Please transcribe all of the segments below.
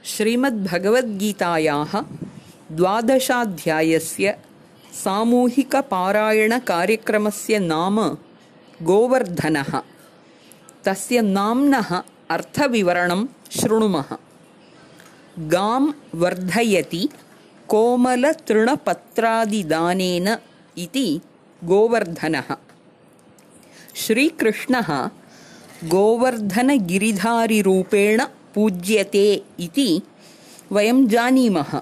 श्रीमद्भगवद्गीतायाः 12. सामूहिकपारायणकार्यक्रमस्य नाम गोवर्धनः। तस्य नाम्नः अर्थविवरणं शृणुमः। गां वर्धयति कोमलतृणपत्रादिदानेन इति गोवर्धनः। श्रीकृष्णः गोवर्धनगिरिधारिरूपेण पूज्यते इति वयं जानीमः।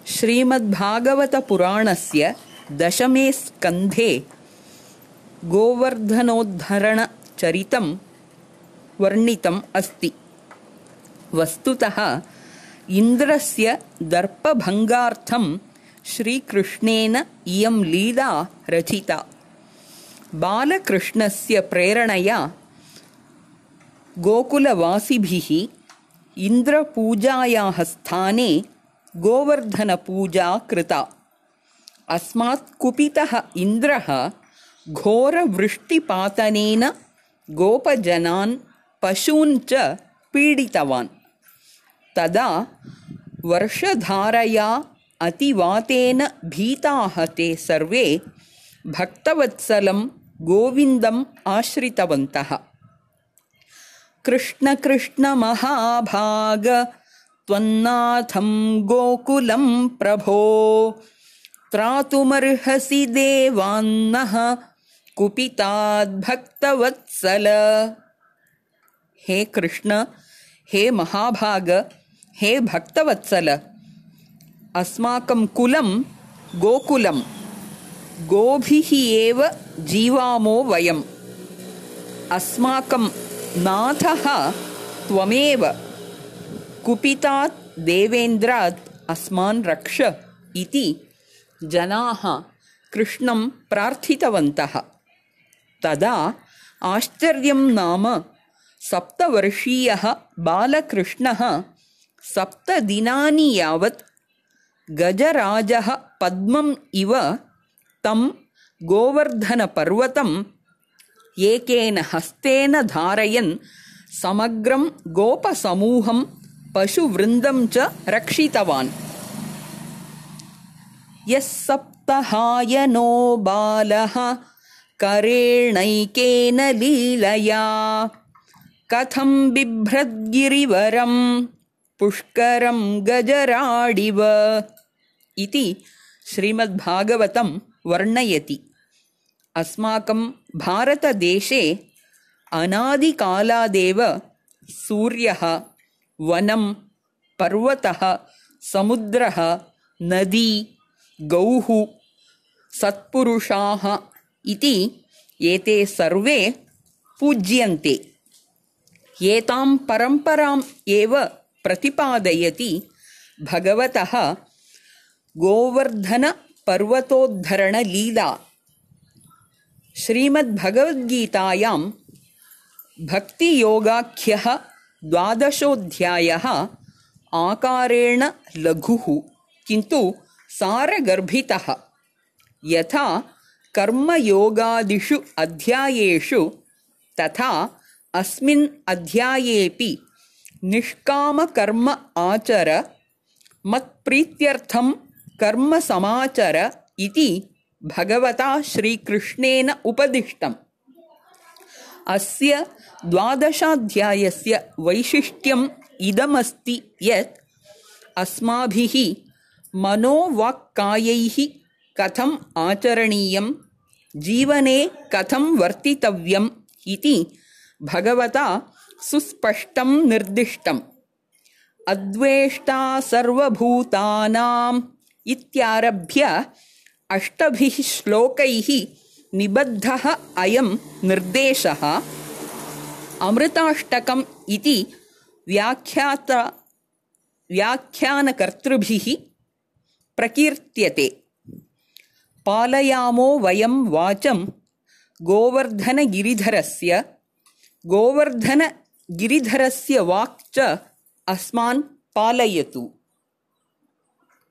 श्रीमद्भागवतपुराणस्य 10 स्कन्धे गोवर्धनोद्धरणचरितं वर्णितम् अस्ति। वस्तुतः इन्द्रस्य दर्पभङ्गार्थं श्रीकृष्णेन इयं लीला रचिता। बालकृष्णस्य प्रेरणया गोकुलवासिभिः इन्द्रपूजायाः स्थाने गोवर्धनपूजा कृता। अस्मात् कुपितः इन्द्रः घोरवृष्टिपातनेन गोपजनान् पशून् च पीडितवान्। तदा वर्षधारया अतिवातेन भीताः ते सर्वे भक्तवत्सलं गोविन्दम् आश्रितवन्तः। कृष्ण कृष्ण महाभाग त्वन्नाथं गोकुलं प्रभो त्रातुमर्हसि देवान्नः कुपिताद्भक्तवत्सल। हे कृष्ण, हे महाभाग, हे भक्तवत्सल, अस्माकं कुलं गोकुलं, गोभिः एव जीवामो वयम्। अस्माकं नाथः त्वमेव, कुपितात् देवेन्द्रात् अस्मान् रक्ष इति जनाः कृष्णं प्रार्थितवन्तः। तदा आश्चर्यं नाम 7 वर्षीयः बालकृष्णः 7 दिनानि यावत् गजराजः पद्मम् इव तं गोवर्धनपर्वतं एकेन हस्तेन धारयन् समग्रं गोपसमूहं पशुवृन्दं च रक्षितवान्। यः सप्तहायनो बालः करेणैकेन लीलया कथं बिभ्रद्गिरिवरं पुष्करं गजराडिव इति श्रीमद्भागवतं वर्णयति। अस्माकं भारतदेशे अनादिकालादेव सूर्यः, वनं, पर्वतः, समुद्रः, नदी, गौः, सत्पुरुषाः इति एते सर्वे पूज्यन्ते। एतां परम्पराम् एव प्रतिपादयति भगवतः गोवर्धनपर्वतोद्धरणलीला। श्रीमद्भगवद्गीतायां भक्तियोगाख्यः 12. आकारेण लघुः किन्तु सारगर्भितः। यथा कर्मयोगादिषु अध्यायेषु तथा अस्मिन् अध्यायेऽपि निष्कामकर्म आचर, मत्प्रीत्यर्थं कर्म समाचर इति भगवता श्रीकृष्णेन उपदिष्टम्। अस्य 12. वैशिष्ट्यम् इदमस्ति यत् अस्माभिः मनोवाक्कायैः कथम् आचरणीयं, जीवने कथं वर्तितव्यम् इति भगवता सुस्पष्टं निर्दिष्टम्। अद्वेष्टा सर्वभूतानाम् इत्यारभ्य 8 श्लोकैः निबद्धः अयं निर्देशः अमृताष्टकम् इति व्याख्यानकर्तृभिः प्रकीर्त्यते। पालयामो वयं वाचं गोवर्धनगिरिधरस्य वाक् च अस्मान् पालयतु।